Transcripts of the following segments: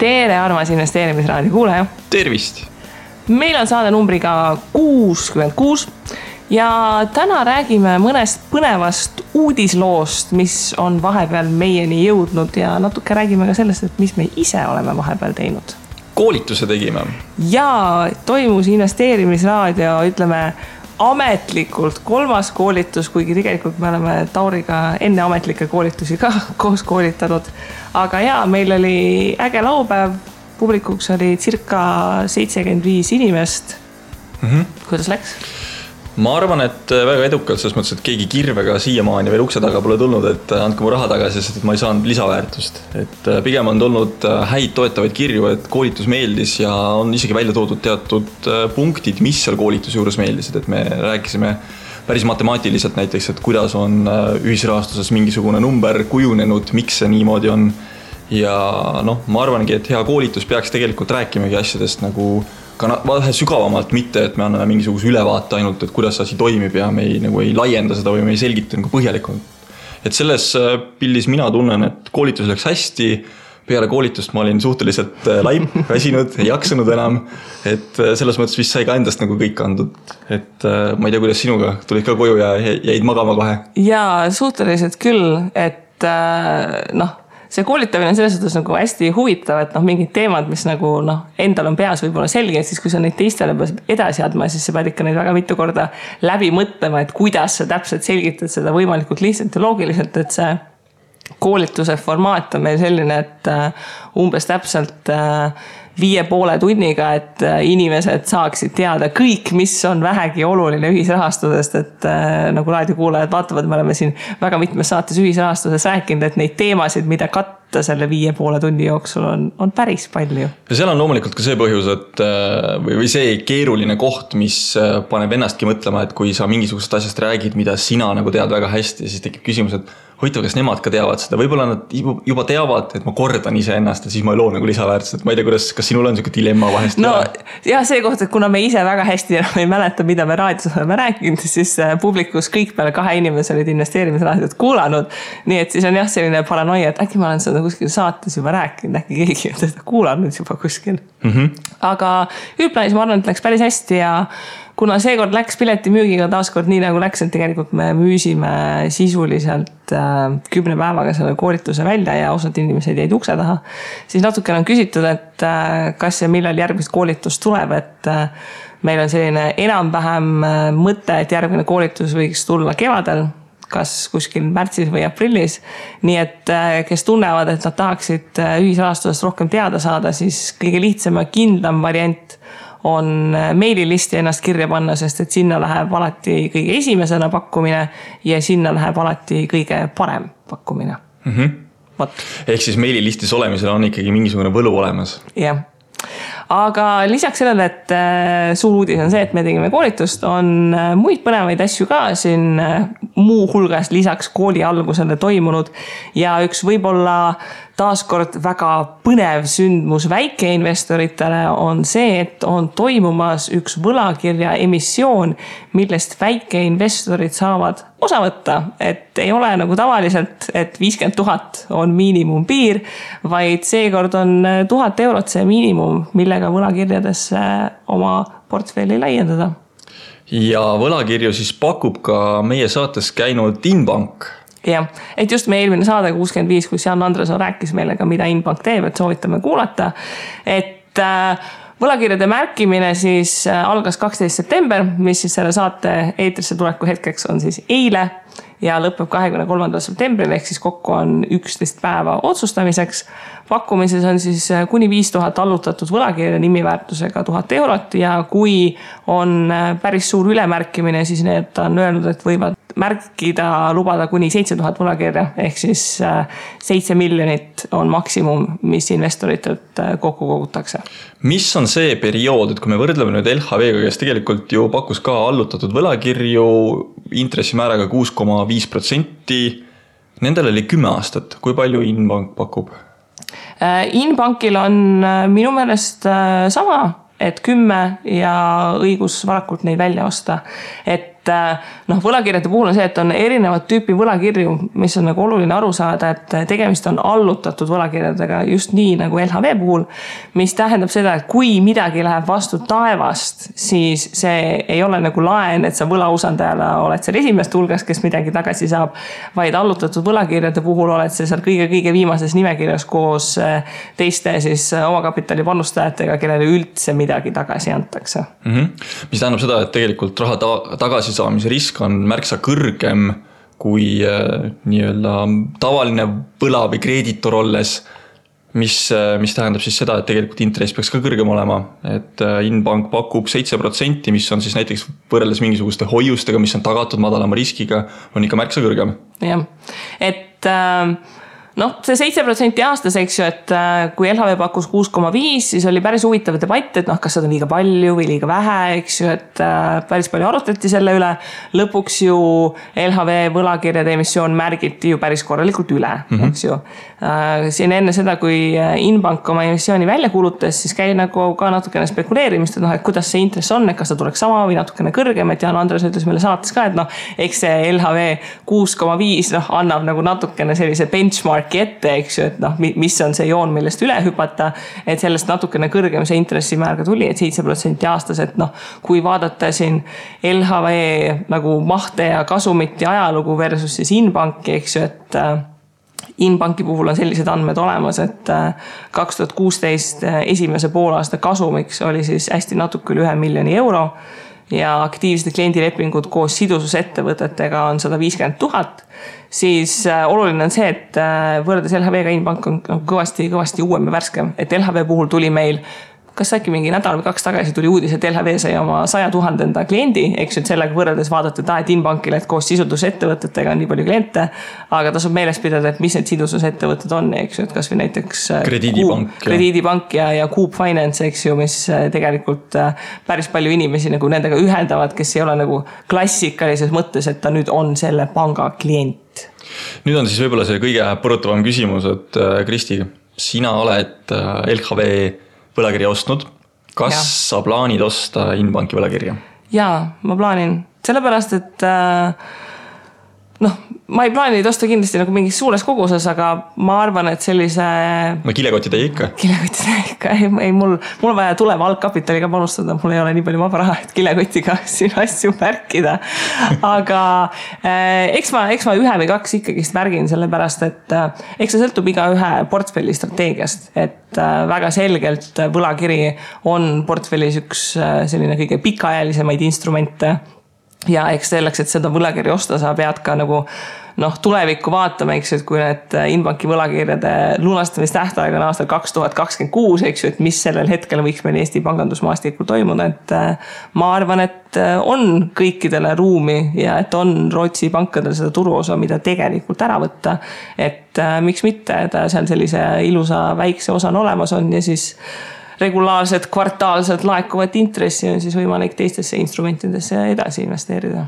Tere, armas investeerimisraadio kuulaja. Tervist! Meil on saade numbriga 66 ja täna räägime mõnest põnevast uudisloost, mis on vahepeal meieni jõudnud ja natuke räägime ka sellest, et mis me ise oleme vahepeal teinud. Koolituse tegime. Ja toimus investeerimisraadio, ütleme, ametlikult 3. koolitus, kuigi tegelikult me oleme Tauriga enne ametlikke koolitusi ka koos koolitanud. Aga ja, meil oli äge laupäev, publikuks oli circa 75 inimest. Kuidas läks? Ma arvan, et väga edukalt, selles mõttes, et keegi kirvega siiamaani veel ukse taga pole tulnud, et andke mu raha tagasi, sest et ma ei saanud lisaväärtust. Et pigem on tulnud häid toetavaid kirju, et koolitus meeldis ja on isegi välja toodud teatud punktid, mis seal koolituse juures meeldisid. Et me rääkisime päris matemaatiliselt näiteks, et kuidas on ühisrahastuses mingisugune number kujunenud, miks see niimoodi on. Ja ma arvangi, et hea koolitus peaks tegelikult rääkimagi asjadest nagu ka vähe sügavamalt, mitte et me anname mingisuguse ülevaate ainult, et kuidas asi toimib ja me ei laienda seda või me ei selgita nagu põhjalikult. Et selles pildis mina tunnen, et koolitus läks hästi, peale koolitust ma olin suhteliselt laip, väsinud, ei jaksanud enam, et selles mõttes vist sai ka endast nagu kõik andud. Et ma ei tea, kuidas sinuga tulid ka koju ja jäid magama kohe. Jaa, suhteliselt küll, et see koolitamine on selles suhtes nagu hästi huvitav, et mingid teemad, mis nagu endal on peas võib-olla selge, et siis kui sa neid teistele edasi adma, siis sa pead ikka neid väga mitu korda läbi mõtlema, et kuidas sa täpselt selgitad seda võimalikult lihtsalt ja loogiliselt, et see koolituse formaat on meil selline, et umbes täpselt 5,5 tunniga, et inimesed saaksid teada kõik, mis on vähegi oluline ühisrahastusest, et nagu raadiokuulajad vaatavad, me oleme siin väga mitmes saates ühisrahastuses rääkinud, et neid teemasid, mida katta selle 5,5 tunni jooksul on päris palju. Ja seal on loomulikult ka see põhjus, et või see keeruline koht, mis paneb ennastki mõtlema, et kui sa mingisugusest asjast räägid, mida sina nagu tead väga hästi, siis tekib küsimus, et hoitav, kas nemad ka teavad seda. Võib-olla nad juba teavad, et ma kordan ise ennast ja siis ma ei loo nagu lisaväärtust. Ma ei tea, kas sinul on selline dilemma vahest? Ja see koht, et kuna me ise väga hästi ei mäleta, mida me raadios oleme rääkinud, siis publikus kõik peale 2 inimese olid investeerimisraadiot kuulanud. Nii et siis on jah selline paranoia, et äkki ma olen seda kuskil saates juba rääkinud, äkki keegi on seda kuulanud juba kuskil. Aga üldplaanis ma arvan, et läks päris hästi ja kuna seekord läks piletimüügiga taaskord nii nagu läks, et tegelikult me müüsime sisuliselt 10 päevaga selle koolituse välja ja osad inimesed jäid ukse taha, siis natukene on küsitud, et kas ja millal järgmist koolitust tuleb, et meil on selline enam-vähem mõte, et järgmine koolitus võiks tulla kevadel, kas kuskil märtsis või aprillis. Nii et kes tunnevad, et nad tahaksid ühisrahastusest rohkem teada saada, siis kõige lihtsam ja kindlam variant on meililisti ennast kirja panna, sest et sinna läheb alati kõige esimesena pakkumine ja sinna läheb alati kõige parem pakkumine. Ehk siis meililistis olemisel on ikkagi mingisugune võlu olemas. Jah. Aga lisaks sellele, et suur uudis on see, et me tegime koolitust, on muid põnevaid asju ka siin muu hulgas lisaks kooli algusele toimunud ja üks võib-olla taaskord väga põnev sündmus väikeinvestoritele on see, et on toimumas üks võlakirja emissioon, millest väikeinvestorid saavad osa võtta, et ei ole nagu tavaliselt, et 50 000 on miinimumpiir, vaid seekord on 1000 eurot see miinimum, millega võlakirjadesse oma portfelli laiendada. Ja võlakirju siis pakub ka meie saates käinud Inbank. Jah, et just meie eelmine saade 65, kus Jan Andresson rääkis meile ka, mida Inbank teeb, et soovitame kuulata. Et võlakirjade märkimine siis algas 12. september, mis siis selle saate eetrisse tuleku hetkeks on siis eile ja lõpeb 23. septembril, ehk siis kokku on 11 päeva otsustamiseks. Pakkumises on siis kuni 5000 allutatud võlakirja nimiväärtusega 1000 eurot ja kui on päris suur ülemärkimine, siis need on öelnud, et võivad märkida, lubada kuni 7000 võlakirja, ehk siis 7 miljonit on maksimum, mis investoritelt kokku kogutakse. Mis on see periood, et kui me võrdleme nüüd LHV-ga, kes tegelikult ju pakkus ka allutatud võlakirju intressimääraga 6,5%, nendel oli 10 aastat. Kui palju Inbank pakub? Inbankil on minu meelest sama, et 10 ja õigus varakult neid välja osta. Et noh, võlakirjade puhul on see, et on erinevad tüüpi võlakirju, mis on nagu oluline aru saada, et tegemist on allutatud võlakirjadega just nii nagu LHV puhul, mis tähendab seda, et kui midagi läheb vastu taevast, siis see ei ole nagu laen, et sa võlausaldajale oled seal esimest hulgas, kes midagi tagasi saab, vaid allutatud võlakirjade puhul oled see seal kõige viimases nimekirjas koos teiste siis omakapitali panustajatega, kellele üldse midagi tagasi antakse. Mis tähendab seda, et tegelikult raha tagasisaamise risk on märksa kõrgem kui nii-öelda tavaline võla või kreeditor olles, mis tähendab siis seda, et tegelikult intress peaks ka kõrgem olema. Et Inbank pakub 7%, mis on siis näiteks võrreldes mingisuguste hoiustega, mis on tagatud madalama riskiga, on ikka märksa kõrgem. Jah, et noh, see 7% aastas, eks ju, et kui LHV pakkus 6,5, siis oli päris huvitav debatt, et noh, kas seda on liiga palju või liiga vähe, eks ju, et päris palju arutati selle üle. Lõpuks ju LHV võlakirjade emissioon märgiti ju päris korralikult üle, eks ju. Siin enne seda, kui Inbank oma emissiooni välja kuulutas, siis käi nagu ka natukene spekuleerimist, et noh, et kuidas see intress on, et kas ta tuleks sama või natukene kõrgem, et Jaan Andres ütles meile saates ka, et noh, eks see LHV 6,5 noh, annab nagu natukene sellise benchmark ette, eks ju, et noh, mis on see joon, millest üle hüpata, et sellest natukene kõrgem see intressimäär ka tuli, et 7% aastas, et noh, kui vaadata siin LHV nagu mahte ja kasumit ja ajalugu versus siis Inbanki, eks ju, et Inbanki puhul on sellised andmed olemas, et 2016 esimese poolaasta kasumiks oli siis hästi natuke üle 1 miljoni euro ja aktiivsed kliendilepingud koos sidususettevõtetega on 150 000, siis oluline on see, et võrreldes LHV-ga Inbank on kõvasti uuem ja värskem, et LHV puhul tuli meil kas äkki mingi nädal või 2 tagasi tuli uudis, et LHV sai oma 100 000 kliendi, eks ju, et sellega võrreldes vaadata, et Inbankile, et koos sidususettevõtetega on nii palju kliente, aga tasub meeles pidada, et mis need sidususettevõtted on, eks ju, et kas või näiteks Krediidipank ja Coop Finance, eks ju, mis tegelikult päris palju inimesi nagu nendega ühendavad, kes ei ole nagu klassikalises mõttes, et ta nüüd on selle panga klient. Nüüd on siis võib-olla see kõige põrutavam küsimus, et Kristi, sina oled LHV võlakirja ostnud. Kas sa plaanid osta Inbanki võlakirja? Jaa, ma plaanin. Sellepärast, et noh, ma ei plaani neid osta kindlasti nagu mingis suures koguses, aga ma arvan, et sellise... No kilekotid ei ikka? Kilekotid ei ikka. Ei, mul vaja tuleva algkapitaliga panustada. Mul ei ole nii palju vaba raha, et kilekotiga siin asju märkida. Aga eks ma 1 või 2 ikkagist märgin sellepärast, et eks see sõltub iga ühe portfelli strateegiast. Et väga selgelt võlakiri on portfellis üks selline kõige pikaajalisemaid instrumente. Ja eks selleks, et seda võlakirja osta, sa pead ka nagu tulevikku vaatama, eks ju, et kui need Inbanki võlakirjade lunastamistähtaeg on aastal 2026, eks ju, et mis sellel hetkel võiks meil Eesti pangandusmaastikul toimuda, et ma arvan, et on kõikidele ruumi ja et on Rootsi pankadel seda turuosa, mida tegelikult ära võtta, et miks mitte, ta seal sellise ilusa väikse osa on olemas on ja siis regulaarsed kvartaalsed laekuvat intressi on siis võimalik teistesse instrumentidesse edasi investeerida.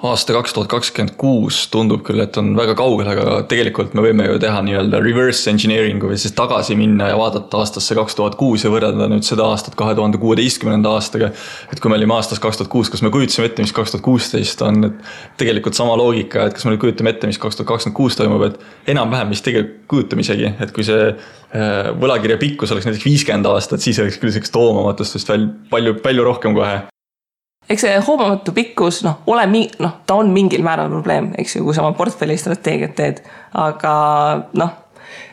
Aasta 2026 tundub küll, et on väga kaugel, aga tegelikult me võime ju teha nii-öelda reverse engineeringu või siis tagasi minna ja vaadata aastasse 2006 ja võrrelda nüüd seda aastat 2016. aastaga. Et kui me olime aastas 2006, kas me kujutasime ette, mis 2016 on, et tegelikult sama loogika, et kas me nüüd kujutame ette, mis 2026 toimub, et enam-vähem mis tegelikult kujutame isegi, et kui see võlakirja pikkus oleks näiteks 50 aastat, siis oleks küll selleks toomamatust palju rohkem kohe. Eks see hoomamatu pikkus, ta on mingil määral probleem, eks ju, kui sa oma portfelli strateegiat teed, aga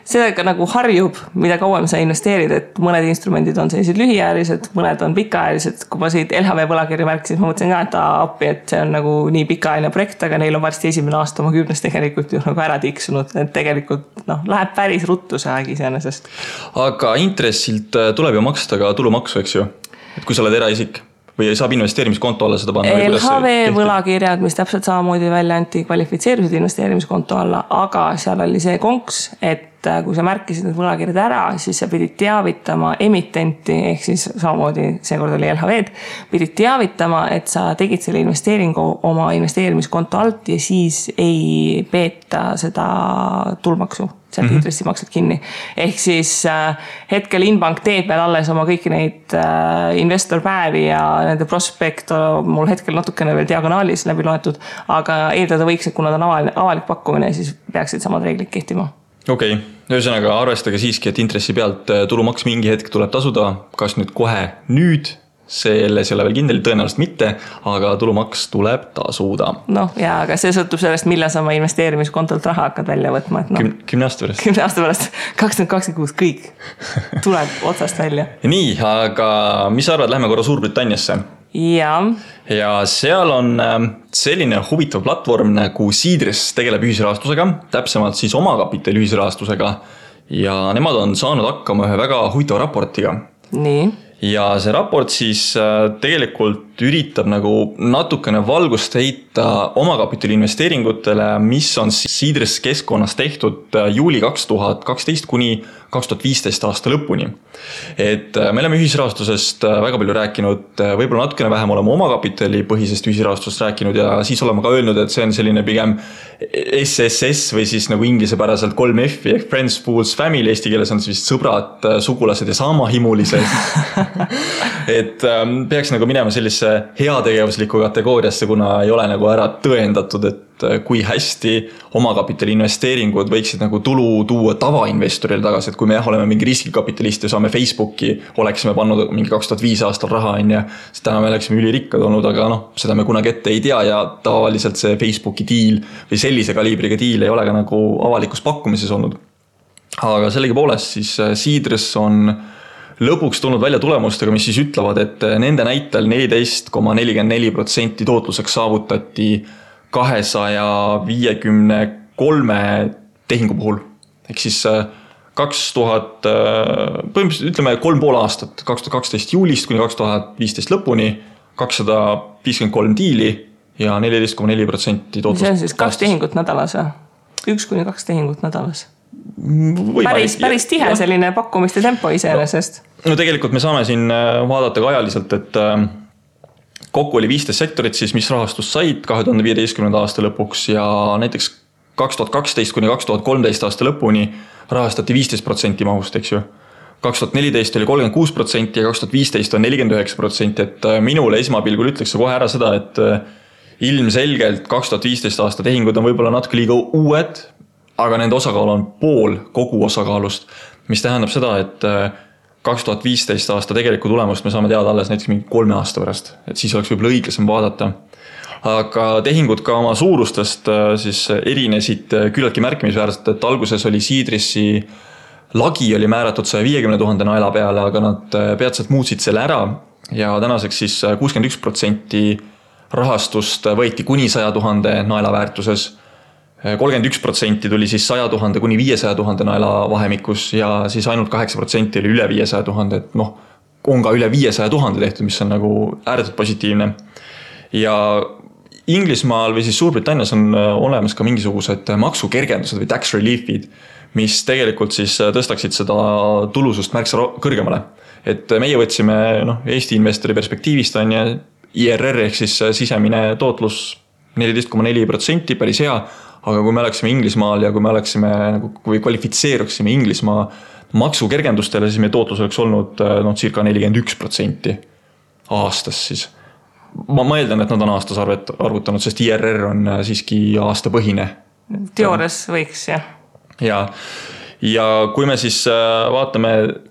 sellega nagu harjub, mida kauem sa investeerid, et mõned instrumendid on sellised lühiajalised, mõned on pikaajalised. Kui ma siit LHV võlakirja märkisin, ma mõtlesin ka, et appi, et see on nagu nii pikaajaline projekt, aga neil on varsti 1. aasta oma 10 tegelikult ju nagu ära tiksunud, et tegelikult läheb päris ruttu see aeg iseenesest. Aga intressilt tuleb ju maksta ka tulumaksu, eks ju, et kui sa oled eraisik või saab investeerimiskonto alla seda panna? LHV võlakirjad, mis täpselt samamoodi välja anti, kvalifitseerisid investeerimiskonto alla, aga seal oli see konks, et kui sa märkisid need võlakirjad ära, siis sa pidid teavitama emitenti, ehk siis samamoodi seekord oli LHV-d, pidid teavitama, et sa tegid selle investeeringu oma investeerimiskonto alt ja siis ei peeta seda tulumaksu, sealt intressimaksed kinni. Ehk siis hetkel Inbank teeb veel alles oma kõiki neid investorpäevi ja nende prospekt mul hetkel natukene veel diagonaalis läbi loetud, aga eeldada võiks, et kuna ta on avalik pakkumine, siis peaksid samad reeglid kehtima. Okei, ühesõnaga arvestage siiski, et intressi pealt tulumaks mingi hetk tuleb tasuda, kas nüüd kohe nüüd, selles ei ole veel kindel, tõenäoliselt mitte, aga tulumaks tuleb tasuda. Noh, ja aga see sõltub sellest, millal sa oma investeerimiskontolt raha hakkad välja võtma. Et 10 aasta pärast. 10 aasta pärast, 2026 kõik tuleb otsast välja. Nii, aga mis sa arvad, lähme korra Suurbritanniasse? Ja seal on selline huvitav platvorm nagu Seedrs tegeleb ühisrahastusega, täpsemalt siis omakapitali ühisrahastusega ja nemad on saanud hakkama ühe väga huvitava raportiga. Nii. Ja see raport siis tegelikult üritab nagu natukene valgust heita omakapitali investeeringutele, mis on Seedrs keskkonnas tehtud juuli 2012 kuni 2015 aasta lõpuni. Et me oleme ühisrahastusest väga palju rääkinud, võib-olla natukene vähem oleme omakapitali põhisest ühisrahastusest rääkinud ja siis oleme ka öelnud, et see on selline pigem SSS või siis nagu inglispäraselt 3F ehk Friends, Fools, Family, eesti keeles on siis sõbrad, sugulased ja saamahimulised. Et peaks nagu minema sellise heategevusliku kategooriasse, kuna ei ole nagu ära tõendatud, et kui hästi omakapitali investeeringud võiksid nagu tulu tuua tavainvestorile tagasi, et kui me oleme mingi riskikapitalist ja saame Facebooki, oleksime pannud mingi 2005 aastal raha, siis täna me oleksime ülirikkad olnud, aga seda me kunagi ette ei tea ja tavaliselt see Facebooki deal või sellise kaliibriga deal ei ole ka nagu avalikus pakkumises olnud. Aga sellegi poolest siis Seedrs on lõpuks tulnud välja tulemustega, mis siis ütlevad, et nende näitel 14,44% tootluseks saavutati 253 tehingu puhul. Ehk siis 3,5 aastat, 2012 juulist kuni 2015 lõpuni, 253 diili ja 14,4% tootlust. See on siis 2 tehingut nädalas, 1-2 tehingut nädalas. Päris tihe selline pakkumiste tempo iseenesest. No tegelikult me saame siin vaadata ka ajaliselt, et kokku oli 15 sektorit siis, mis rahastust said 2015. aasta lõpuks ja näiteks 2012 kuni 2013 aasta lõpuni rahastati 15% mahust, eks ju. 2014 oli 36% ja 2015 on 49%, et minule esmapilgul ütleks kohe ära seda, et ilmselgelt 2015 aasta tehingud on võib-olla natuke liiga uued, aga nende osakaal on pool kogu osakaalust, mis tähendab seda, et 2015 aasta tegeliku tulemust me saame teada alles näiteks mingi 3 aasta pärast, et siis oleks võib-olla õiglasem vaadata. Aga tehingud ka oma suurustest siis erinesid küllaltki märkimisväärselt, et alguses oli Seedrisi lagi oli määratud 150 000 naela peale, aga nad peatselt muutsid selle ära ja tänaseks siis 61% rahastust võeti kuni 100 000 naela väärtuses. 31% tuli siis 100 000 kuni 500 000 naela vahemikus ja siis ainult 8% oli üle 500 000, et on ka üle 500 000 tehtud, mis on nagu ääretult positiivne. Ja Inglismaal või siis Suurbritannias on olemas ka mingisugused maksukergendused või tax reliefid, mis tegelikult siis tõstaksid seda tulusust märksa kõrgemale. Et meie võtsime Eesti investori perspektiivist on ja IRR ehk siis sisemine tootlus 14,4%, päris hea, aga kui me oleksime Inglismaal ja kui me oleksime kui kvalifitseeruksime Inglismaa maksukergendustele, siis meie tootlus oleks olnud circa 41% aastas siis. Ma mõeldan, et nad on aastas arvutanud, sest IRR on siiski aastapõhine. Teoorias võiks, jah. Ja kui me siis vaatame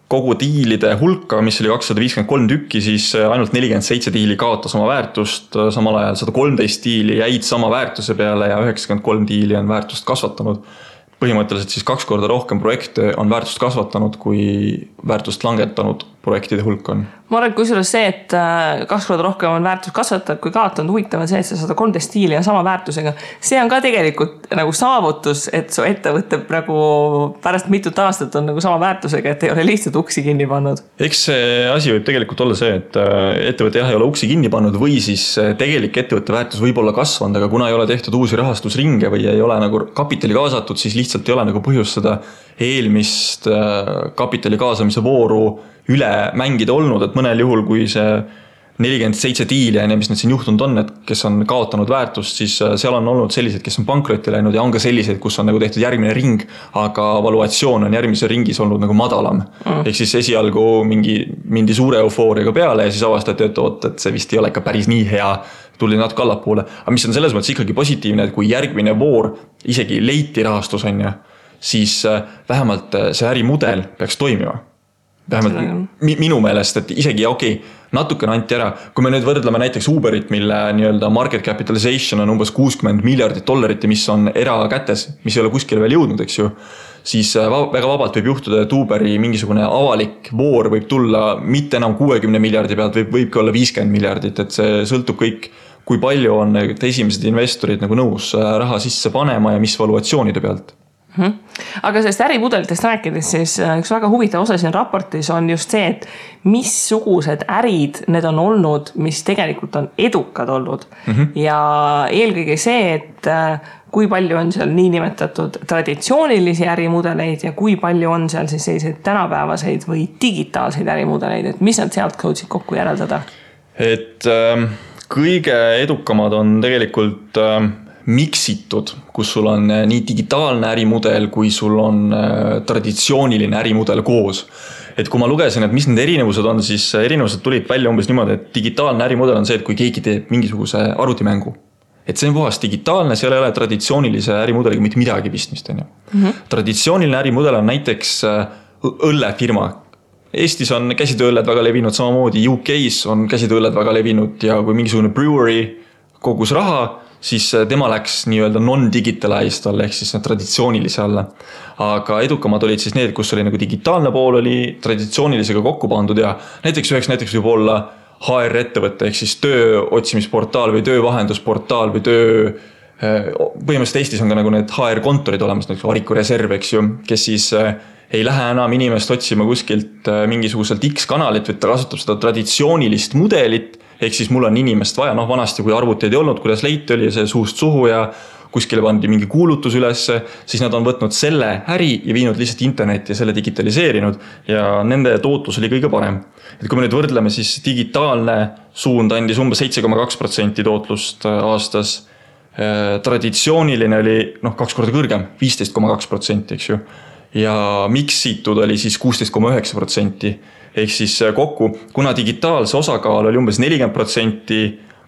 kogu diilide hulka, mis oli 253 tükki, siis ainult 47 diili kaotas oma väärtust, samal ajal 113 diili jäid sama väärtuse peale ja 93 diili on väärtust kasvatanud. Põhimõtteliselt siis 2 korda rohkem projekte on väärtust kasvatanud kui väärtust langetanud projektide hulk on. Ma arvan, kusjuures see, et 2 korda rohkem on väärtus kasvatajad kui kaotanud, huvitav on see, et sa 113 diili on sama väärtusega. See on ka tegelikult nagu saavutus, et su ettevõte nagu pärast mitut aastat on nagu sama väärtusega, et ei ole lihtsalt uksi kinni pannud. Eks see asi võib tegelikult olla see, et ettevõte ei ole uksi kinni pannud või siis tegelik ettevõtte väärtus võib olla kasvanud, aga kuna ei ole tehtud uusi rahastusringe või ei ole nagu kapitali kaasatud, siis lihtsalt ei ole nagu põhjust seda eelmist kapitali kaasamise vooru üle mängida olnud, et mõnel juhul, kui see 47 diili ja mis need siin juhtunud on, et kes on kaotanud väärtust, siis seal on olnud sellised, kes on pankrotti läinud ja on ka sellised, kus on nagu tehtud järgmine ring, aga valuatsioon on järgmise ringis olnud nagu madalam. Ehk siis esialgu mindi suure eufooriaga peale ja siis avastati, et see vist ei ole ikka päris nii hea, tuli natuke allapoole. Aga mis on selles mõttes ikkagi positiivne, et kui järgmine voor isegi leiti rahastus on ja, siis vähemalt see ärimudel peaks toimima. Vähemalt minu meelest, et isegi natukene anti ära. Kui me nüüd võrdleme näiteks Uberit, mille nii-öelda market capitalization on umbes $60 miljardit ja mis on erakätes, mis ei ole kuskile veel jõudnud, eks ju, siis väga vabalt võib juhtuda, et Uberi mingisugune avalik voor võib tulla mitte enam 60 miljardi pealt, võibki olla 50 miljardit, et see sõltub kõik, kui palju on esimesed investorid nagu nõus raha sisse panema ja mis valuatsioonide pealt. Aga sellest ärimudelitest rääkides, siis üks väga huvitav osa siin raportis on just see, et missugused ärid need on olnud, mis tegelikult on edukad olnud. Ja eelkõige see, et kui palju on seal niinimetatud traditsioonilisi ärimudeleid ja kui palju on seal siis selliseid tänapäevaseid või digitaalseid ärimudeleid, et mis nad sealt jõudsid kokku järeldada? Et kõige edukamad on tegelikult miksitud, kus sul on nii digitaalne ärimudel, kui sul on traditsiooniline ärimudel koos. Et kui ma lugesin, et mis need erinevused on, siis erinevused tulid välja umbes niimoodi, et digitaalne ärimudel on see, et kui keegi teeb mingisuguse arvutimängu. Et see on puhas digitaalne, seal ei ole traditsioonilise ärimudeliga mitte midagi pistmist. Traditsiooniline ärimudel on näiteks õllefirma. Eestis on käsitööõlled väga levinud, samamoodi UK-s on käsitööõlled väga levinud ja kui mingisugune brewery kogus raha, siis tema läks nii-öelda non-digitalized alla, ehk siis traditsioonilise alla. Aga edukamad olid siis need, kus oli nagu digitaalne pool oli traditsioonilisega kokku pandud ja näiteks võib olla HR-ettevõte, ehk siis töö otsimisportaal või töövahendusportaal või põhimõtteliselt Eestis on ka nagu need HR-kontorid olemas, näiteks Variku Reserv, eks ju, kes siis ei lähe enam inimest otsima kuskilt mingisuguselt X-kanalit, või ta kasutab seda traditsioonilist mudelit, ehk siis mul on inimest vaja, vanasti kui arvuteid ei olnud, kuidas leiti oli see suust suhu ja kuskile pandi mingi kuulutus ülesse, siis nad on võtnud selle äri ja viinud lihtsalt internetti ja selle digitaliseerinud ja nende tootlus oli kõige parem. Et kui me nüüd võrdleme, siis digitaalne suund andis umbes 7,2% tootlust aastas. Traditsiooniline oli 2 korda kõrgem, 15,2%, eks ju. Ja miksitud oli siis 16,9%. Ehk siis kokku, kuna digitaalse osakaal oli umbes 40%,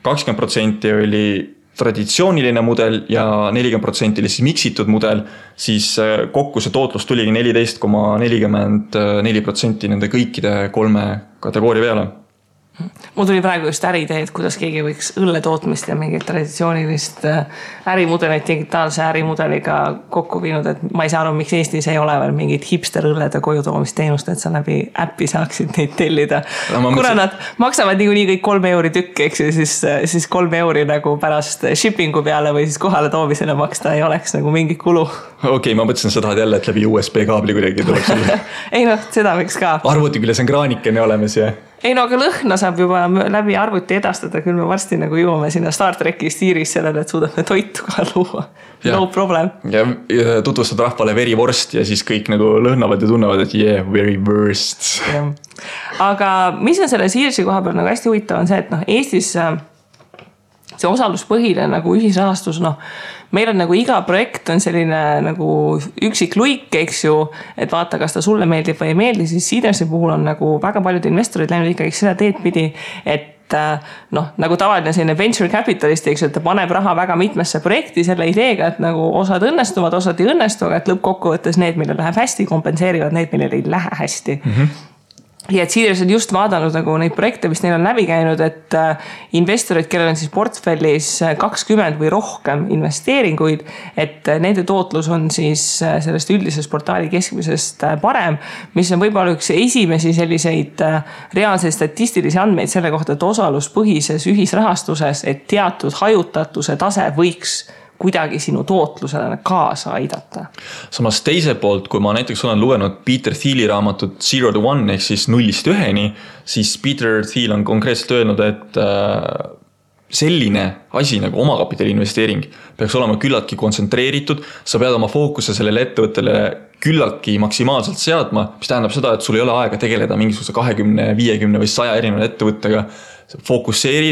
20% oli traditsiooniline mudel ja 40% oli siis miksitud mudel, siis kokku see tootlus tuligi 14,44% nende kõikide 3 kategooria peale. Mul tuli praegu just äriidee, et kuidas keegi võiks õlletootmist ja mingit traditsioonilist ärimudelit digitaalse ärimudeliga kokku viinud, et ma ei saa aru, miks Eestis ei ole veel mingit hipster õllede kojutoomisteenust, et sa läbi äppi saaksid neid tellida. Kuna nad maksavad nii kõik 3 euri tükk, eks ju, siis 3 euri nagu pärast shippingu peale või siis kohale toomisele maksta ei oleks nagu mingi kulu. Okei, ma mõtlesin, sa tahad jälle, et läbi USB kaabli kuidagi tuleks üle. Ei seda võiks ka. Arvuti küljes on kraanikene olemas ja... Ei aga lõhna saab juba läbi arvuti edastada, küll me varsti nagu jõuame sinna Star Treki stiiris sellele, et suudame toitu ka luua. No problem. Ja tutvustad rahvale very worst ja siis kõik nagu lõhnavad ja tunnevad, et yeah, very worst. Aga mis on selle Searsi koha peal nagu hästi huvitav on see, et Eestis see osaluspõhine nagu ühisrahastus, meil on nagu iga projekt on selline nagu üksik luik, eks ju, et vaata, kas ta sulle meeldib või ei meeldi, siis Seedersi puhul on nagu väga paljud investorid läinud ikkagi seda teed pidi, et nagu tavaline selline venture capitalist, eks ju, et ta paneb raha väga mitmesse projekti selle ideega, et nagu osad õnnestuvad, osad ei õnnestu, aga et lõppkokkuvõttes need, millel läheb hästi, kompenseerivad need, millel ei lähe hästi. ja et Seedrs on just vaadanud nagu neid projekte, mis neil on läbi käinud, et investorid, kellel on siis portfellis 20 või rohkem investeeringuid, et nende tootlus on siis sellest üldisest portaali keskmisest parem, mis on võib-olla üks esimesi selliseid reaalseid statistilisi andmeid selle kohta, et osaluspõhises ühisrahastuses, et teatud hajutatuse tase võiks kuidagi sinu tootlusele kaasa aidata. Samas teise poolt, kui ma näiteks olen lugenud Peter Thieli raamatut 0 to 1 ehk siis 0-st 1-ni, siis Peter Thiel on konkreetselt öelnud, et selline asi nagu omakapitali investeering peaks olema küllaltki kontsentreeritud, sa pead oma fookuse sellele ettevõttele küllaltki maksimaalselt seadma, mis tähendab seda, et sul ei ole aega tegeleda mingisuguse 20, 50 või 100 erineva ettevõttega. Fokusseeri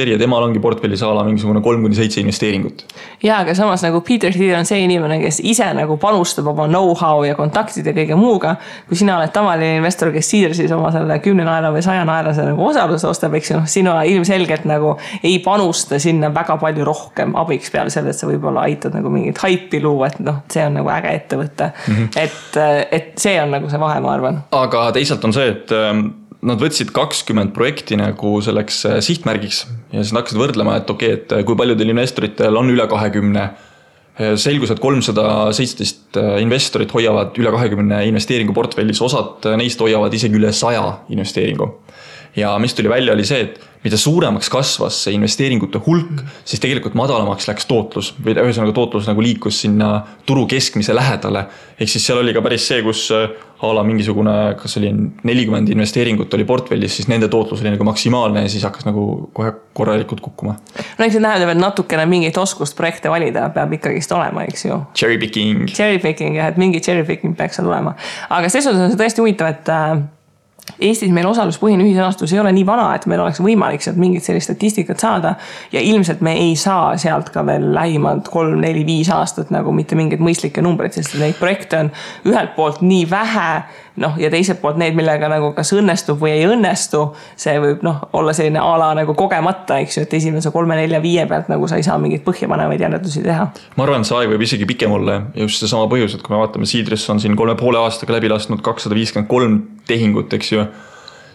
ja temal ongi portfellis ala mingisugune 3-7 investeeringut. Ja, aga samas nagu Peter Thiel on see inimene, kes ise nagu panustab oma know-how ja kontaktid ja kõige muuga. Kui sina oled tavaline investor, kes Seedrsis oma selle 10 naela või 100 naelase nagu osaluse ostab, eks ju, sina ilmselgelt nagu ei panusta sinna väga palju rohkem abiks peale selle, et sa võib-olla aitad nagu mingit haipi luua, et noh, see on nagu äge ettevõte. Et see on nagu see vahe, ma arvan. Aga teisalt on see, et nad võtsid 20 projekti nagu selleks sihtmärgiks ja siis hakkasid võrdlema, et okei, et kui paljudel investoritel on üle 20. Selgus, et 317 investorit hoiavad üle 20 investeeringu portfellis, osad neist hoiavad isegi üle 100 investeeringu. Ja mis tuli välja oli see, et mida suuremaks kasvas see investeeringute hulk, siis tegelikult madalamaks läks tootlus või ühesõnaga tootlus nagu liikus sinna turu keskmise lähedale. Ehk siis seal oli ka päris see, kus ala mingisugune, kas oli 40 investeeringut oli portfellis, siis nende tootlus oli nagu maksimaalne ja siis hakkas nagu kohe korralikult kukkuma. No eks see tähendab, et natukene mingit oskust projekte valida peab ikkagist olema, eks ju. Cherry picking, jah, et mingi cherry picking peaks seal olema. Aga selles on see tõesti huvitav, et Eestis meil osaluspõhine ühisrahastus ei ole nii vana, et meil oleks võimalik sealt mingit sellist statistikat saada ja ilmselt me ei saa sealt ka veel lähimad 3, 4, 5 aastat nagu mitte mingid mõistlikke numbreid, sest neid projekte on ühelt poolt nii vähe, ja teiselt poolt need, millega nagu kas õnnestub või ei õnnestu, see võib olla selline ala nagu kogemata, eks ju, et esimese 3, 4, 5 pealt nagu sa ei saa mingit põhjapanevaid järeldusi teha. Ma arvan, see aeg võib isegi pikem olla ja just see sama põhjus, et kui me vaatame Seedrs on siin 3,5 aastaga läbi lasknud 253 tehingut, eks ju,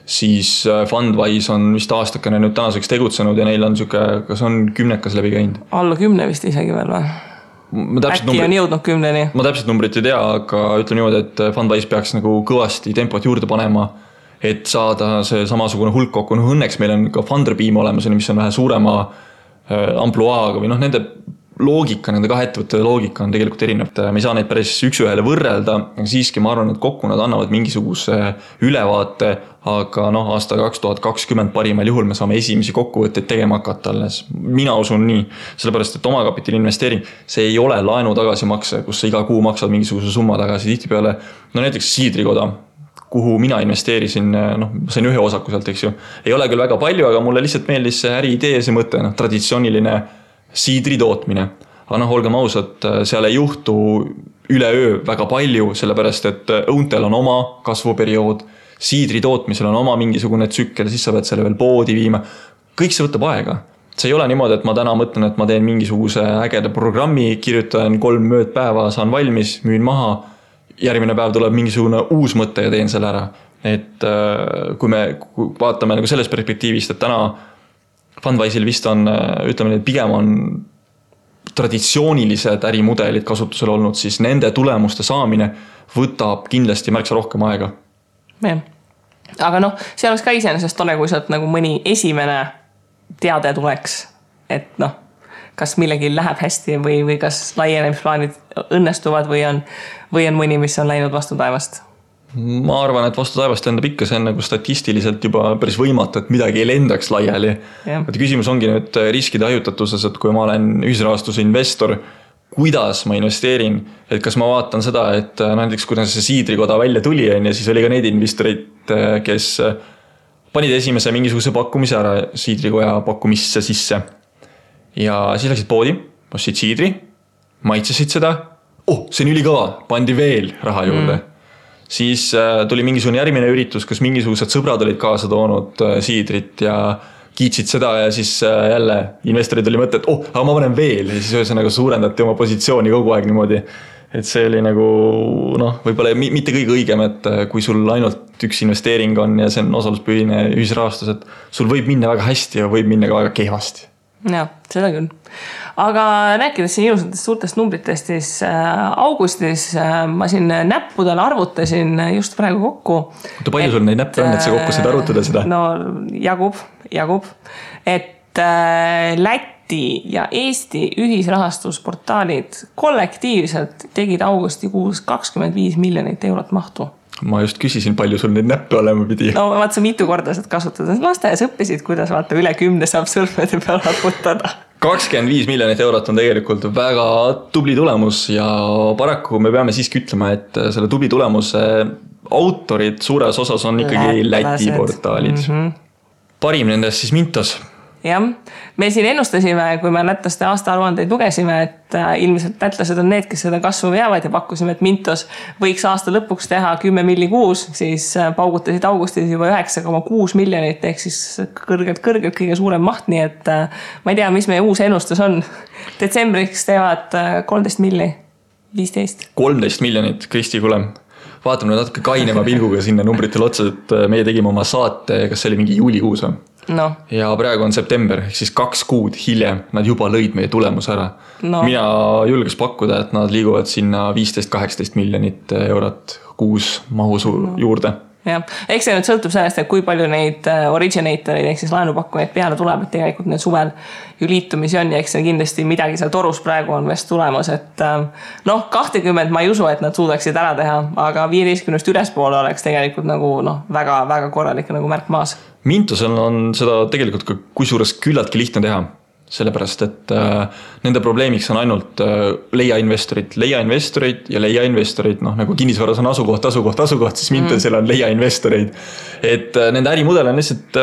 siis Fundwise on vist aastakene nüüd tänaseks tegutsenud ja neil on kas on 10 läbi käinud? Alla 10 vist isegi veel või? Äkki on jõudnud 10-ni. Ma täpselt numbrit ei tea, aga ütleme niimoodi, et Fundwise peaks nagu kõvasti tempot juurde panema, et saada see samasugune hulk kokku. Õnneks meil on ka Funderbeam olemas, mis on vähe suurema ampluaaga või nende loogika, nende kahe ettevõtte loogika on tegelikult erinev. Me ei saa neid päris üks-ühele võrrelda, aga siiski ma arvan, et kokku nad annavad mingisuguse ülevaate, aga aasta 2020 parimal juhul me saame esimesi kokkuvõtteid tegema hakata alles. Mina usun nii, sellepärast, et omakapitali investeering, see ei ole laenu tagasimakse, kus sa iga kuu maksad mingisuguse summa tagasi tihtipeale. Näiteks Seedrikoda, kuhu mina investeerisin, sain ühe osaku sealt, eks ju. Ei ole küll väga palju, aga mulle lihtsalt meeldis see äriidee, see mõte, traditsiooniline Seedri tootmine. Aga olgem ausad, seal ei juhtu üleöö väga palju, sellepärast et õuntel on oma kasvuperiood, Seedri tootmisel on oma mingisugune tsükkel, siis sa pead selle veel poodi viima. Kõik see võtab aega. See ei ole niimoodi, et ma täna mõtlen, et ma teen mingisuguse ägeda programmi, kirjutan 3 möödpäeva, saan valmis, müün maha, järgmine päev tuleb mingisugune uus mõte ja teen selle ära. Et kui me vaatame nagu sellest perspektiivist, et täna Fundwise'il vist on, ütleme, et pigem on traditsioonilised ärimudelid kasutusel olnud, siis nende tulemuste saamine võtab kindlasti märksa rohkem aega. Ja. Aga see oleks ka iseenesest tore, kui sealt nagu mõni esimene teade tuleks, et kas millegi läheb hästi või kas laienemisplaanid õnnestuvad või on mõni, mis on läinud vastu taevast. Ma arvan, et vastu taevast lendab ikka, see on nagu statistiliselt juba päris võimatu, et midagi ei lendaks laiali. Et küsimus ongi nüüd riskide hajutatuses, et kui ma olen ühisrahastuse investor, kuidas ma investeerin, et kas ma vaatan seda, et näiteks kuidas see Seedrikoda välja tuli ja siis oli ka neid investorid, kes panid esimese mingisuguse pakkumise ära Seedrikoja pakkumisse sisse ja siis läksid poodi, ostsid Seedri, maitsesid seda, see on ülikõva, pandi veel raha juurde. Siis tuli mingisugune järgmine üritus, kus mingisugused sõbrad olid kaasa toonud Seedrit ja kiitsid seda ja siis jälle investorid oli mõte, et aga ma panen veel ja siis ühesõnaga suurendati oma positsiooni kogu aeg niimoodi. et see oli nagu noh, võib-olla mitte kõige õigem, et kui sul ainult üks investeering on ja see on osaluspõhine ühisrahastus, et sul võib minna väga hästi ja võib minna ka väga kehvasti. Jah, seda küll. Aga rääkides siin ilusatest suurtest numbritest, siis augustis ma siin näppudel arvutasin just praegu kokku. Palju sul neid näppe on, et sa kokku said arvutada seda? No jagub. Et Läti ja Eesti ühisrahastusportaalid kollektiivselt tegid augustikuus 25 miljonit eurot mahtu. Ma just küsisin, palju sul neid näppe olema pidi. No vaata, sa mitu korda saad kasutada. Lasteaias õppisid, kuidas vaata üle 10 saab sõrmede peal arvutada. 25 miljonit eurot on tegelikult väga tubli tulemus ja paraku me peame siiski ütlema, et selle tubli tulemuse autorid suures osas on ikkagi Läti portaalid. Parim nendest siis Mintos. Jah, me siin ennustasime, kui me lätlaste aastaaruandeid lugesime, et ilmselt lätlased on need, kes seda kasvu veavad ja pakkusime, et Mintos võiks aasta lõpuks teha 10 milli kuus, siis paugutasid augustis juba 9,6 miljonit ehk siis kõrgelt kõige suurem maht, nii et ma ei tea, mis meie uus ennustus on. Detsembriks teevad 13 milli, 15. 13 miljonit, Kristi, kuule. Vaatame natuke kainema pilguga sinna numbritele otsa, et meie tegime oma saate, kas see oli mingi juulikuus või? No. Ja praegu on september, ehk siis 2 kuud hiljem nad juba lõid meie tulemus ära. No. Mina julges pakkuda, et nad liiguvad sinna 15-18 miljonit eurot kuus mahu juurde. Jah, eks see nüüd sõltub sellest, et kui palju neid originatoreid ehk siis laenupakkujaid peale tuleb, et tegelikult need suvel ju liitumisi on ja eks see kindlasti midagi seal torus praegu on vest tulemas, et 20 ma ei usu, et nad suudaksid ära teha, aga 15 ülespoole oleks tegelikult nagu väga korralik nagu märk maas. Mintosel on seda tegelikult ka kusjuures küllaltki lihtne teha. Sellepärast, et nende probleemiks on ainult leiainvestorid ja leiainvestorid, nagu kinnisvaras on asukoht, siis Mintosel on leiainvestoreid. Et nende ärimudel on lihtsalt,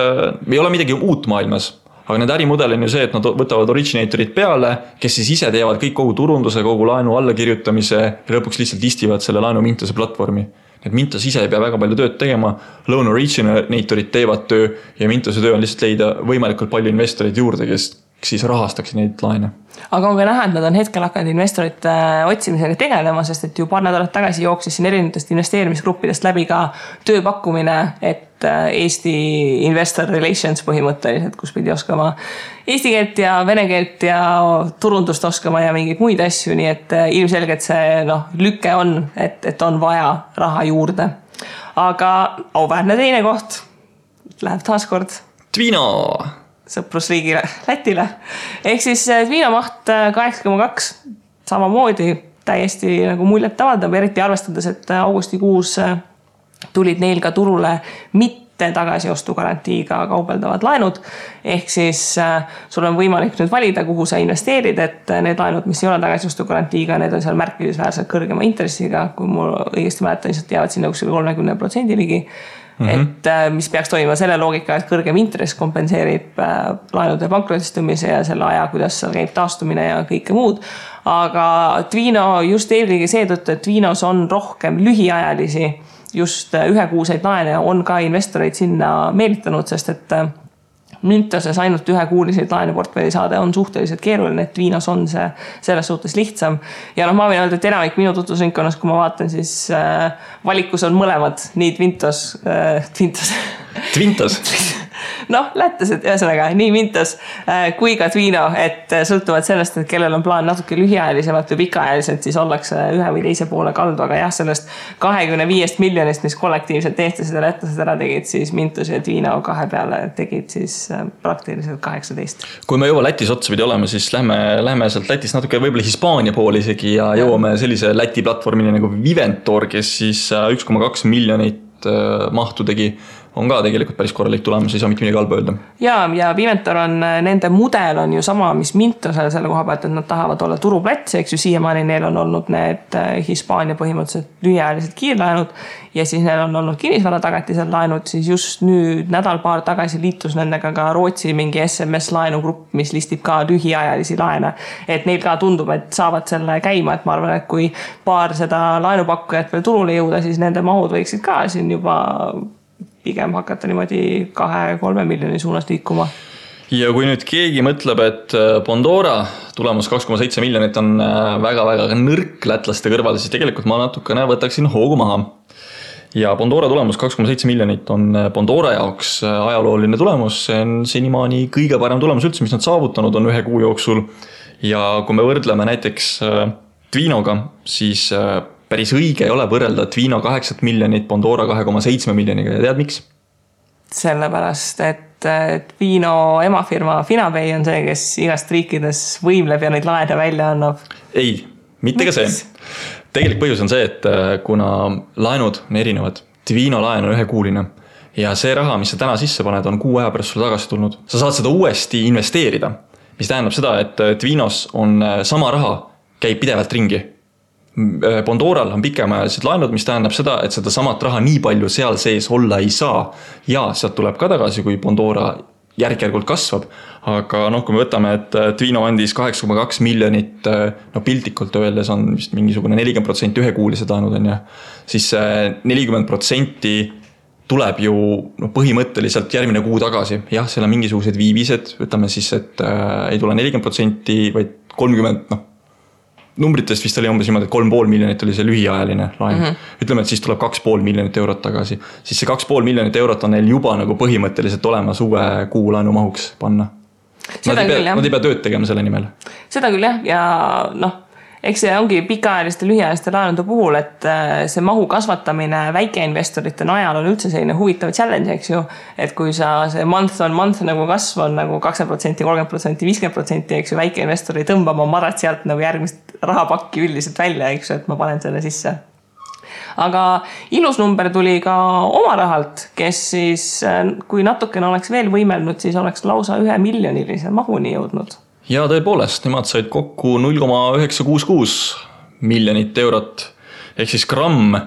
ei ole midagi uut maailmas, aga nende ärimudel on ju see, et nad võtavad originatorid peale, kes siis ise teevad kõik kogu turunduse, kogu laenu allakirjutamise ja lõpuks lihtsalt listivad selle laenu Mintose platvormi. Et Mintos ise ei pea väga palju tööd tegema, loan originatorid teevad töö ja Mintose töö on lihtsalt leida võimalikult palju investoreid juurde, kes siis rahastaks neid laene. Aga on ka näha, et nad on hetkel hakanud investorite otsimisega tegelema, sest et ju paar nädalat tagasi jooksis siin erinevatest investeerimisgruppidest läbi ka tööpakkumine, et Eesti Investor Relations põhimõtteliselt, kus pidi oskama eesti keelt ja vene keelt ja turundust oskama ja mingeid muid asju, nii et ilmselgelt see lüke on, et on vaja raha juurde. Aga auväärne teine koht läheb taaskord Twino! Sõprusriigile, Lätile. Ehk siis Twino maht 8,2 samamoodi täiesti nagu muljet avaldab, eriti arvestades, et augustikuus tulid neil ka turule mitte tagasiostu garantiiga kaubeldavad laenud. Ehk siis sul on võimalik nüüd valida, kuhu sa investeerid, et need laenud, mis ei ole tagasiostu garantiiga, need on seal märkimisväärselt kõrgema intressiga, kui mul õigesti mäletan, siis jäävad sinna 30% ligi. Et mis peaks toimuma selle loogika, et kõrgem intress kompenseerib laenude pankrotistumise ja selle aja, kuidas seal käib taastumine ja kõike muud. Aga Twino just eelkõige seetõttu, et Twinos on rohkem lühiajalisi, just ühekuuseid laene on ka investoreid sinna meelitanud, sest et Mintoses ainult ühekuuliseid laenuportfelli saada on suhteliselt keeruline, et Twinos on see selles suhtes lihtsam. Ja ma võin öelda, et enamik minu tutvusringkonnas, kui ma vaatan, siis valikus on mõlemad, nii Twintos. Lätlased, ühesõnaga, nii Mintos kui ka Twino, et sõltuvad sellest, et kellel on plaan natuke lühiajalisemalt või pikaajaliselt, siis ollakse ühe või teise poole kaldu, aga jah, sellest 25 miljonist, mis kollektiivselt eestlased ja lätlased ära tegid, siis Mintos ja Twino kahe peale tegid siis praktiliselt 18. Kui me juba Lätis otsapidi oleme, siis lähme sealt Lätist natuke võib-olla Hispaania poole isegi ja jõuame sellise Läti platvormini nagu Viventor, kes siis 1,2 miljonit mahtu tegi, on ka tegelikult päris korralik tulemus, ei saa mitte midagi halba öelda. Ja Viventor on, nende mudel on ju sama, mis Mintosel selle koha pealt, et nad tahavad olla turuplats, eks ju siiamaani neil on olnud need Hispaania põhimõtteliselt lühiajalised kiirlaenud ja siis neil on olnud kinnisvara tagatisel laenud, siis just nüüd nädal-paar tagasi liitus nendega ka Rootsi mingi SMS laenugrupp, mis listib ka lühiajalisi laene. Et neil ka tundub, et saavad selle käima, et ma arvan, et kui paar seda laenupakkujat veel turule jõuda, siis nende mahud võiksid ka siin juba pigem hakata niimoodi 2-3 miljoni suunas liikuma. Ja kui nüüd keegi mõtleb, et Bondora tulemus 2,7 miljonit on väga-väga nõrk lätlaste kõrval, siis tegelikult ma natukene võtaksin hoogu maha. Ja Bondora tulemus 2,7 miljonit on Bondora jaoks ajalooline tulemus, see on senimaani kõige parem tulemus üldse, mis nad saavutanud on 1 kuu jooksul. Ja kui me võrdleme näiteks Twinoga, siis päris õige ei ole võrrelda Twino 8 miljonit Bondora 2,7 miljoniga ja tead miks? Sellepärast, et Twino emafirma Finabay on see, kes igast riikides võimleb ja neid laene välja annab. Ei, mitte ka see. Tegelik põhjus on see, et kuna laenud on erinevad, Twino laen on 1-kuuline ja see raha, mis sa täna sisse paned, on 6 aja pärast sulle tagasi tulnud. Sa saad seda uuesti investeerida, mis tähendab seda, et Twinos on sama raha, käib pidevalt ringi. Bondoral on pikemaajalised laenud, mis tähendab seda, et seda samat raha nii palju seal sees olla ei saa ja sealt tuleb ka tagasi, kui Bondora järk-järgult kasvab, aga kui me võtame, et Twino andis 8,2 miljonit, piltlikult öeldes on vist mingisugune 40% 1-kuulised laenud on ja, siis 40% tuleb ju põhimõtteliselt järgmine kuu tagasi. Jah, seal on mingisugused viibised, võtame siis, et ei tule 40%, vaid 30%, numbritest vist oli umbes niimoodi, et 3,5 miljonit oli see lühiajaline laen. Ütleme, et siis tuleb 2,5 miljonit eurot tagasi. Siis see 2,5 miljonit eurot on neil juba nagu põhimõtteliselt olemas uue kuu laenu mahuks panna. Nad ei pea tööd tegema selle nimel. Seda küll jah, ja eks see ongi pikaajaliste lühiajaliste laenude puhul, et see mahu kasvatamine väikeinvestorite najal on üldse selline huvitav challenge, eks ju, et kui sa see month on month nagu kasv on nagu 20%, 30%, 50%, eks ju, väikeinvestor ei tõmba oma marat sealt nagu järgmist rahapakki üldiselt välja, eks ju, et ma panen selle sisse. Aga ilus number tuli ka oma rahalt, kes siis, kui natukene oleks veel võimelnud, siis oleks lausa 1 miljonilise mahuni jõudnud. Ja tõepoolest, nemad said kokku 0,966 miljonit eurot, ehk siis gramm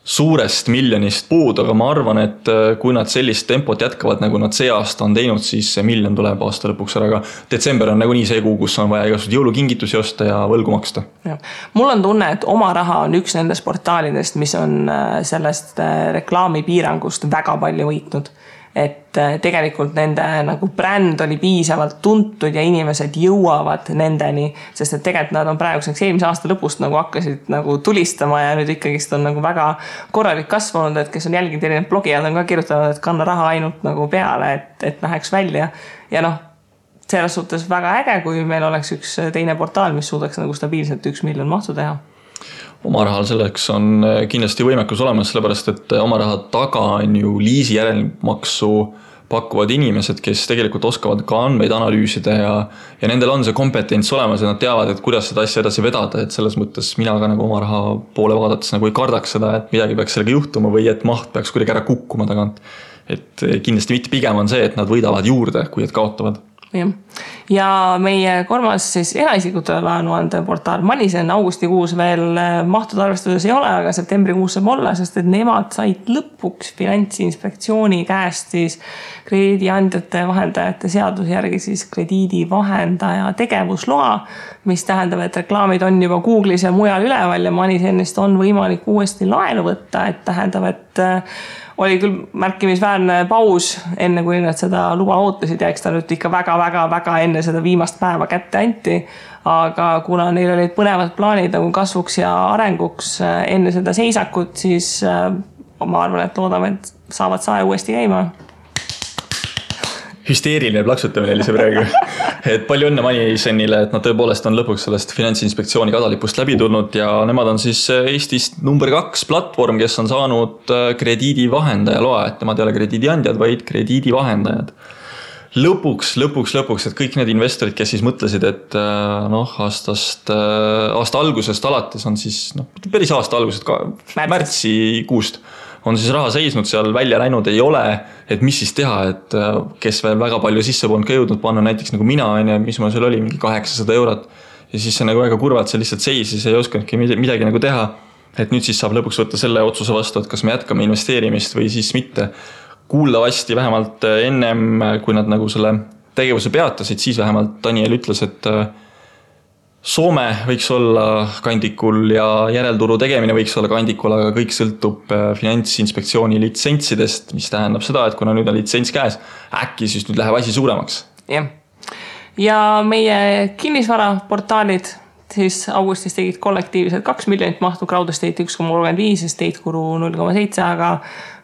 suurest miljonist puud, aga ma arvan, et kui nad sellist tempot jätkavad, nagu nad see aasta on teinud, siis see miljon tuleb aasta lõpuks ära, aga detsember on nagu nii see kuu, kus on vaja igasugused jõulukingitusi osta ja võlgu maksta. Ja. Mul on tunne, et oma raha on üks nendest portaalidest, mis on sellest reklaamipiirangust väga palju võitnud. Et tegelikult nende nagu bränd oli piisavalt tuntud ja inimesed jõuavad nendeni, sest et tegelikult nad on praeguseks eelmise aasta lõpust nagu hakkasid nagu tulistama ja nüüd ikkagist on nagu väga korralik kasvanud, et kes on jälginud erinevad blogijad on ka kirjutanud, et kanna raha ainult nagu peale, et läheks välja ja selles suhtes väga äge, kui meil oleks üks teine portaal, mis suudaks nagu stabiilselt 1 miljon mahtu teha. Oma rahal selleks on kindlasti võimekus olemas, sellepärast, et oma raha taga on ju liisi järelmaksu pakkuvad inimesed, kes tegelikult oskavad ka andmeid analüüsida ja nendel on see kompetents olemas ja nad teavad, et kuidas seda asja edasi vedada, et selles mõttes mina ka nagu oma raha poole vaadates nagu ei kardaks seda, et midagi peaks sellega juhtuma või et maht peaks kuidagi ära kukkuma tagant. Et kindlasti mitte pigem on see, et nad võidavad juurde, kui et kaotavad. Ja meie kolmas siis eraisikutele laenuande portaal Manisen augustikuus veel mahtud arvestuses ei ole, aga septembrikuus saab olla, sest et nemad said lõpuks Finantsinspektsiooni käest siis krediidiandjate vahendajate seaduse järgi siis krediidivahendaja tegevusloa, mis tähendab, et reklaamid on juba Google'is ja mujal üleval ja Manisenist on võimalik uuesti laenu võtta, et tähendab, et oli küll märkimisväärne paus enne, kui nad seda luba ootasid ja eks ta nüüd ikka väga enne seda viimast päeva kätte anti. Aga kuna neil olid põnevad plaanid nagu kasvuks ja arenguks enne seda seisakut, siis ma arvan, et loodame, et saavad sae uuesti käima. Hüsteeriline plaksutamine oli see praegu. Et palju õnne Manisenile, et nad tõepoolest on lõpuks sellest Finantsinspektsiooni kadalipust läbi tulnud ja nemad on siis Eestist number 2 platvorm, kes on saanud krediidivahendaja loa, et nemad ei ole krediidiandjad, vaid krediidivahendajad. Lõpuks, et kõik need investorid, kes siis mõtlesid, et aasta algusest alates on siis, päris aasta algusest, märtsikuust on siis raha seisnud seal välja läinud, ei ole, et mis siis teha, et kes veel väga palju sisse polnud ka jõudnud panna, näiteks nagu mina, mis ma seal oli, mingi 800 eurot ja siis see nagu väga kurvalt see lihtsalt seisis, ei oskanudki midagi nagu teha, et nüüd siis saab lõpuks võtta selle otsuse vastu, et kas me jätkame investeerimist või siis mitte. Kuuldavasti vähemalt ennem, kui nad nagu selle tegevuse peatasid, siis vähemalt Daniel ütles, et Soome võiks olla kandikul ja järelturu tegemine võiks olla kandikul, aga kõik sõltub Finantsinspektsiooni litsentsidest, mis tähendab seda, et kuna nüüd on litsents käes, äkki siis nüüd läheb asi suuremaks. Jah. ja meie kinnisvaraportaalid siis augustis tegid kollektiivselt 2 miljonit mahtu, Crowdestate 1,35, Estate Guru 0,7, aga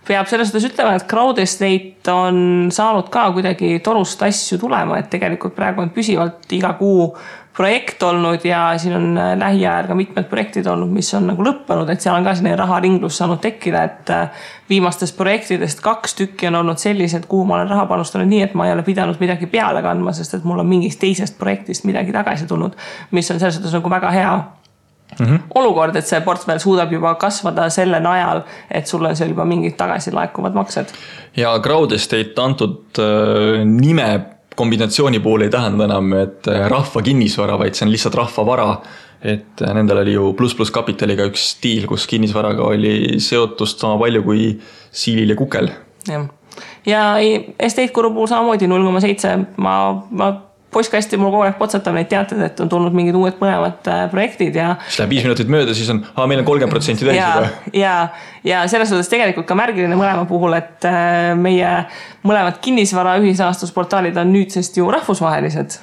peab selles suhtes ütlema, et Crowdestate on saanud ka kuidagi torust asju tulema, et tegelikult praegu on püsivalt iga kuu projekt olnud ja siin on lähiajal ka mitmed projektid olnud, mis on nagu lõppenud, et seal on ka selline raharinglus saanud tekkida, et viimastest projektidest 2 tükki on olnud sellised, kuhu ma olen raha panustanud nii, et ma ei ole pidanud midagi peale kandma, sest et mul on mingist teisest projektist midagi tagasi tulnud, mis on selles suhtes nagu väga hea olukord, et see portfell suudab juba kasvada selle najal, et sul on seal juba mingid tagasi laekuvad maksed. Ja Crowdestate antud nime kombinatsiooni puhul ei tähenda enam, et rahva kinnisvara, vaid see on lihtsalt rahva vara. Et nendel oli ju plus kapitaliga üks stiil, kus kinnisvaraga oli seotust sama palju kui Siilil ja Kukel. Ja Estate Guru puhul samamoodi 0,7. Ma postkasti mul kogu aeg potsatab neid teated, et on tulnud mingid uued mõlemad projektid ja... Siis läheb 5 minutit mööda, siis on, meil on 30% täis. Ja selles suhtes tegelikult ka märgiline mõlema puhul, et meie mõlemad kinnisvara ühisrahastusportaalid on nüüdsest ju rahvusvahelised.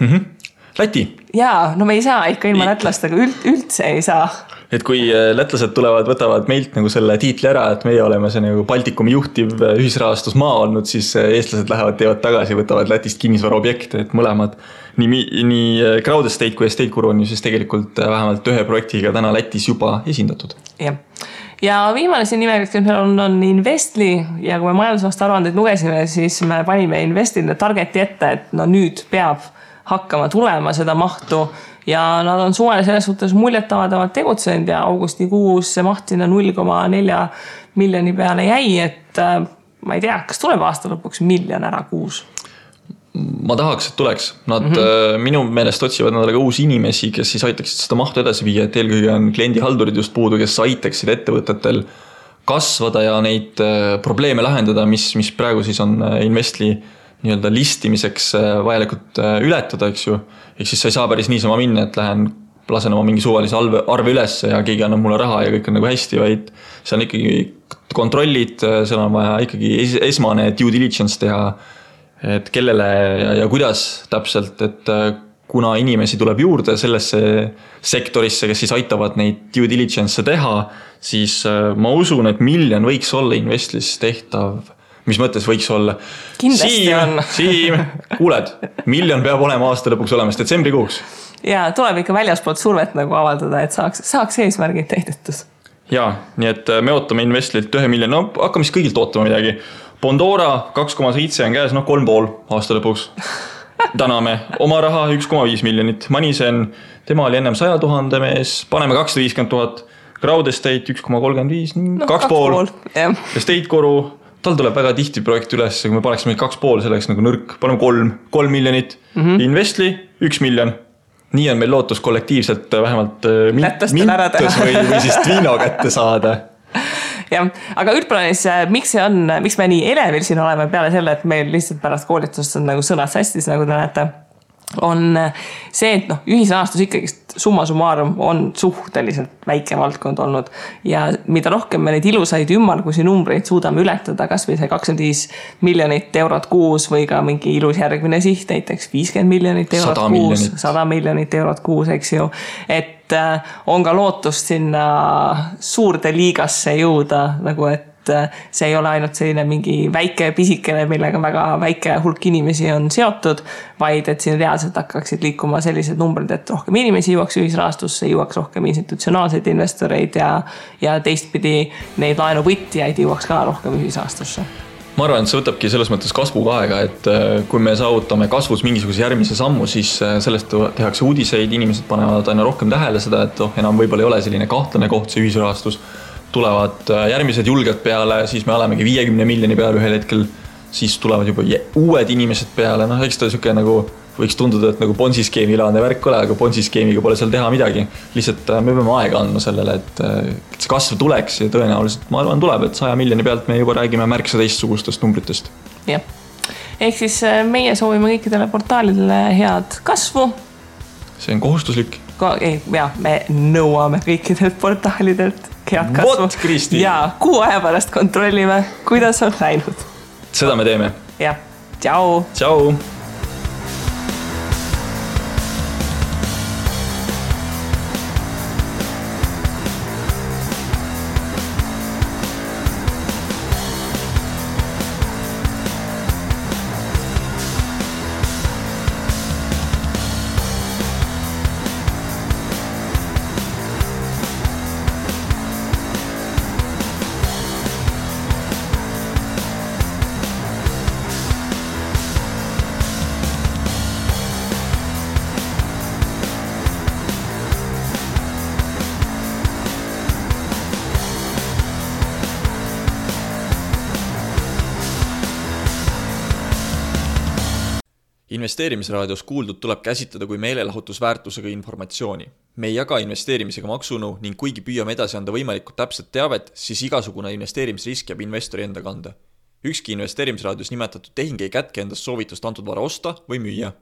Läti. Jaa, no me ei saa ikka ilma lätlastega, üldse ei saa. Et kui lätlased tulevad, võtavad meilt nagu selle tiitli ära, et meie oleme see nagu Baltikumi juhtiv ühisrahastusmaa olnud, siis eestlased lähevad, teevad tagasi, võtavad Lätist kinnisvara objekte, et mõlemad nii Crowdestate kui Estate Guru on ju siis tegelikult vähemalt ühe projektiga täna Lätis juba esindatud. Ja viimane siin nimekirjas on Investly ja kui me majandusaasta aruandeid lugesime, siis me panime Investlile targeti ette, et no nüüd peab hakkama tulema seda mahtu ja nad on suvele selles suhtes muljetavadavalt tegutsenud ja augustikuus see maht sinna 0,4 miljoni peale jäi, et ma ei tea, kas tuleb aasta lõpuks miljon ära kuus? Ma tahaks, et tuleks. Nad minu meelest otsivad nädalaga uusi inimesi, kes siis aitaksid seda mahtu edasi viia, et eelkõige on kliendihaldurid just puudu, kes aitaksid ettevõtetel kasvada ja neid probleeme lahendada, mis praegu siis on Investly nii-öelda listimiseks vajalikult ületada, eks ju. Ehk siis sa ei saa päris niisama minna, et lasen oma mingi suvalise arve üles ja keegi annab mulle raha ja kõik on nagu hästi, vaid see on ikkagi kontrollid, seal on vaja ikkagi esmane due diligence teha, et kellele ja kuidas täpselt, et kuna inimesi tuleb juurde sellesse sektorisse, kes siis aitavad neid due diligence teha, siis ma usun, et miljon võiks olla Investlis tehtav. Mis mõttes võiks olla? Kindlasti Siim, kuuled, miljon peab olema aasta lõpuks olemas detsembrikuuks. Ja tuleb ikka väljaspoolt survet nagu avaldada, et saaks eesmärgid täidetus. Ja, nii et me ootame Investlilt 1 miljon, no hakkame siis kõigilt ootama midagi. Bondora 2,7 on käes, 3,5 aasta lõpuks. Täname oma raha 1,5 miljonit. Manisen, tema oli ennem 100 000 mees, paneme 250 000. Crowdestate 1,35, 2,5. Estate Guru, tal tuleb väga tihti projekt üles, kui me paneksime 2,5, selleks nagu nõrk, paneme 3 miljonit. Investly 1 miljon. Nii on meil lootus kollektiivselt vähemalt mintus või siis Twino kätte saada. Ja, aga üldplaanis, miks me nii elevil siin oleme peale selle, et meil lihtsalt pärast koolitust on nagu sõnad sastis, nagu te näete, on see, et ühisrahastus ikkagi summa summarum on suhteliselt väike valdkond olnud ja mida rohkem me neid ilusaid ümmargusi numbreid suudame ületada, kas või see 25 miljonit eurot kuus või ka mingi ilus järgmine siht, näiteks 50 miljonit eurot kuus, 100 miljonit eurot kuus, eks ju, et on ka lootust sinna suurde liigasse jõuda, nagu et see ei ole ainult selline mingi väike pisikene, millega väga väike hulk inimesi on seotud, vaid et siin reaalselt hakkaksid liikuma sellised numbrid, et rohkem inimesi jõuaks ühisrahastusse, jõuaks rohkem institutsionaalseid investoreid ja teistpidi neid laenuvõtjaid jõuaks ka rohkem ühisrahastusse. Ma arvan, et see võtabki selles mõttes kasvuga aega, et kui me saavutame kasvus mingisuguse järgmise sammu, siis sellest tehakse uudiseid, inimesed panevad aina rohkem tähele seda, et enam võib-olla ei ole selline kahtlane koht see ühisrahastus. Tulevad järgmised julged peale, siis me olemegi 50 miljoni peale ühel hetkel, siis tulevad juba uued inimesed peale, eks ta siuke nagu võiks tunduda, et nagu Ponzi-skeemi ilaane värk ole, aga Ponzi-skeemiga pole seal teha midagi. Lihtsalt me peame aega andma sellele, et see kasv tuleks ja tõenäoliselt, ma arvan, tuleb, et 100 miljoni pealt me juba räägime märksa teistsugustest numbritest. Jah. Ehk siis meie soovime kõikidele portaalidele head kasvu. See on kohustuslik. Me nõuame kõikidelt portaalidelt head kasvu. Vot, Kristi! Ja kuu aja pärast kontrollime, kuidas on läinud. Seda me teeme. Jah. Tšau! Tšau! Investeerimisraadios kuuldud tuleb käsitleda kui meelelahutusväärtusega informatsiooni. Me ei jaga investeerimisega maksunu ning kuigi püüame edasi anda võimalikult täpset teavet, siis igasugune investeerimisrisk jääb investori enda kanda. Ükski investeerimisraadios nimetatud tehing ei kätke endast soovitust antud vara osta või müüa.